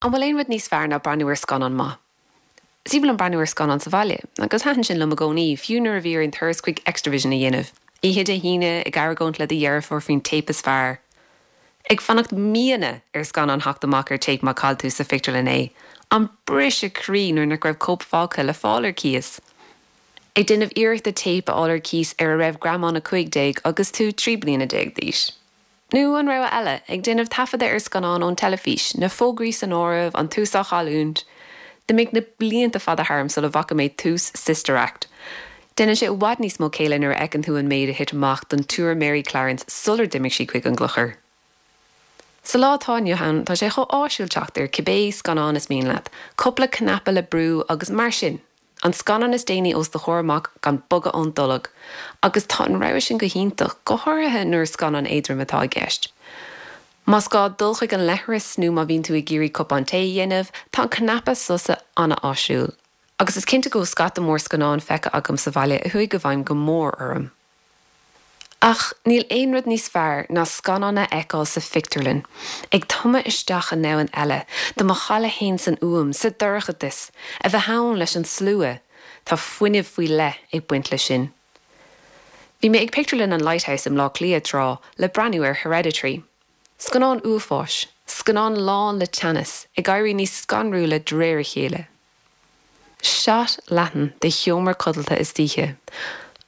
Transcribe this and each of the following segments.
An bhfuil aon rud níos fearr ná breathnú ar scannán maith? Is aoibhinn liom breathnú ar scannáin sa bhaile, agus thaitin sin liom i gcónaí, fiú nuair a bhí orainn turas chuig Xtra-vision a dhéanamh, oíche Dé hAoine, ag argóint le do dheirfiúr faoin téip is fearr. Ag fanacht míonna ar scannán theacht amach ar téip má chaill tú sa phictiúrlann é. An briseadh croí nuair nach raibh cóip fágtha le fáil ar cíos. Ag déanamh iarrachta téip a fháil ar cíos ar a raibh greamán 15 agus tú 13 bliana d'aois. Nó an rogha eile, ag déanamh taifeadadh ar scannán ón teilifís, na fógraí san áireamh, an tús á chailliúint. D'imigh na blianta fada tharm sula bhfaca mé tús Sister Act. Déanann sé i bhfad níos mó céille nuair a fheiceann tú an méid a thit amach don tSiúr Mary Clarence sular d'imigh sí chuig an gclochar. Sa lá atá inniu ann, tá sé chomh áisiúil teacht ar cibé scannán is mian leat, cúpla cnaipe le brú agus mar sin! An scannán is déanaí os do chomhair amach gan bogadh ón dtolg. Agus tá an rogha sin go hiontach, go háirithe nuair is scannán éadrom atá i gceist. Más gá dul chuig an leithreas nó má bhíonn tú ag iarraidh cupán tae a dhéanamh, tá an cnaipe sosa an-áisiúil. Agus is cinnte go bhfuil scata mór scannán feicthe agam sa bhaile a chuaigh i bhfeidhm go mór orm. Ach níl aon rud níos fearr ná scannán a fheiceáil sa phictiúrlann, ag tumadh isteach i ndomhan eile, do mo chailleadh fhéin san fhuaim, sa dorchadas, a bheith ann leis an slua, tá fuinneamh faoi leith ag baint leis sin. Bhí mé ag pictiúrlann an Lighthouse i mBleá Cliath tráth le breathnú ar Hereditary. Scannán uafáis, scannán lán le teannas, ag éirí níos scanrúla de réir a chéile. Shot leathan de sheomra codlata istoíche,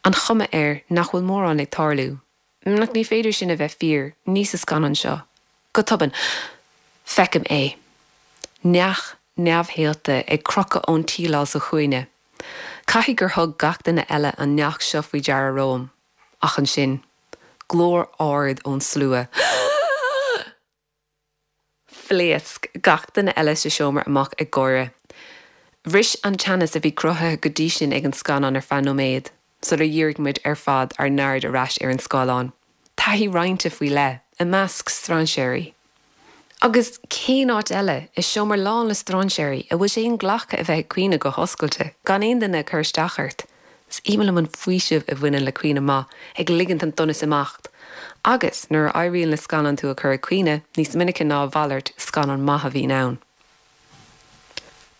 an chuma air nach bhfuil mórán ag tarlú. Ach ní féidir sin a bheith fíor, ní sa scannán seo. Go tobann, feicim é. Neach neamhshaolta ag crochadh ón tsíleáil sa chúinne. Caithfidh gur thug gach duine eile an neach seo faoi deara romham. Ach ansin, glór ard ón slua. Phléasc gach duine eile sa seomra amach ag gáire. Bhris an teannas a bhí cruthaithe go dtí sin ag an scannán ar feadh nóiméad, sular dhírigh muid ar fad ár n-aird ar ais ar an scáileán. Taithí roinnte faoi leith, i measc strainséirí. Agus cén áit eile, i seomra lán le strainséirí, a bhfuil sé inghlactha a bheith ag caoineadh go hoscailte, gan aon duine ag cur isteach ort? Is aoibhinn liom an faoiseamh a bhaineann le caoineadh maith, ag ligint an donas imeacht. Agus, nuair a éiríonn le scannán tú a chur ag caoineadh, níos minice ná a mhalairt, scannán maith a bhíonn ann.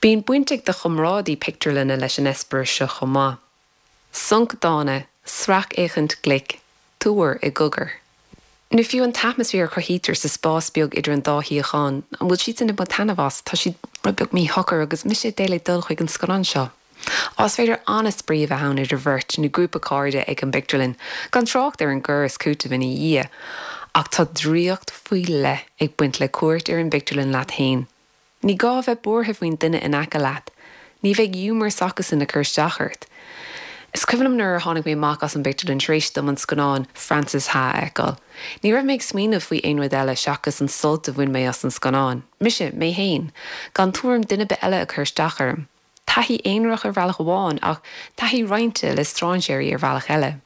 Bíonn baint ag do chomrádaí pictiúrlainne leis an eispéireas seo chomh maith. Sonc dána, sracfhéachaint ghlic, tuar i gcogar. Nó fiú an t-atmaisféar a chruthaítear sa spás beag idir an dá shuíochán, an bhfuil siadsan ag baint taitneamh as? Tá siad rud beag míshocair agus mise ag dul ag dul chuig an scannán seo. Á, is féidir an-spraoi a bheith ann idir bheirt nó grúpa cairde ag an bpictiúrlann, gan trácht ar an gcur is cúiteamh ina dhiaidh. Ach tá draíocht faoi leith ag baint le cuairt ar an bpictiúrlann leat féin. Ní gá a bheith buartha faoin duine in aice leat. Ní bheidh giúmar s'acusan ag cur isteach ort. Is cuimhin liom nuair a tháinig mé amach as an bpictiúrlann tar éis dom an scannán Frances Ha a fheiceáil. Ní raibh mé ag smaoineamh faoi aon rud eile seachas an sult a bhain mé as an scannán. Mise, mé féin. Gan tuairim duine ar bith eile ag cur isteach orm. Taithí aonarach ar bhealach amháin ach taithí roinnte le strainséirí ar bhealach eile.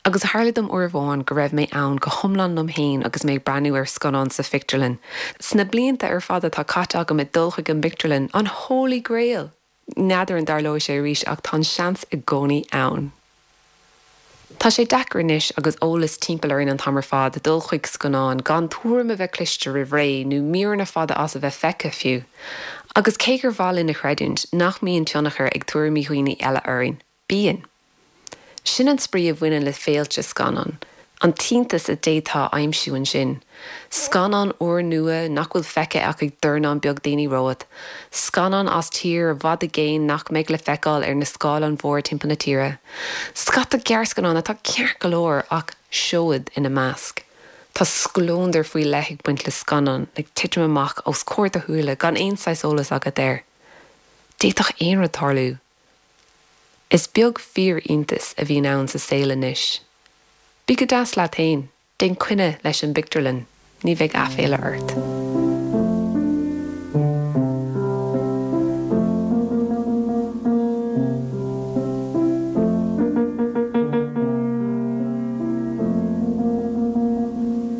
Agus tharla dom uair amháin go raibh mé ann go hiomlán liom féin agus mé ag breathnú ar scannán sa phictiúrlann. Sna blianta ar fad atá caite agam ag dul chuig an bpictiúrlann, an Holy Grail! N'fheadar an dtarlóidh sé arís ach tá an seans i gcónaí ann. Tá sé deacair anois agus eolas timpeall orainn an t-am ar fad dul chuig scannán gan tuairim a bheith cloiste roimh ré nó míreanna fada as a bheith feicthe fiú. Agus cé gur mhaith linn a chreidiúint nach mbíonn tionchar ag tuairimí dhaoine eile orainn, Bíonn. Sin an spraoi a bhaineann le féilte scannán, an t-iontas a d'fhéadfá a aimsiú ansin. Scannán úrnua nach bhfuil feicthe ach ag dornán beag daoine romhat. Scannán as tír i bhfad i gcéin nach mbeidh le feiceáil ar na scáileáin mhóra timpeall na tíre. Scata gearrscannán atá ceart go leor ach seoid ina measc. Tá scleondar faoi leith ag baint le scannán ag titim amach os comhair do shúile gan aon saghas eolas agat air. D'fhéadfadh aon rud tarlú. Is beag fíor-iontas a bhíonn ann sa saol anois. Bí go deas leat fhéin, déan coinne leis an bpictiúrlann, ní bheidh aiféala ort.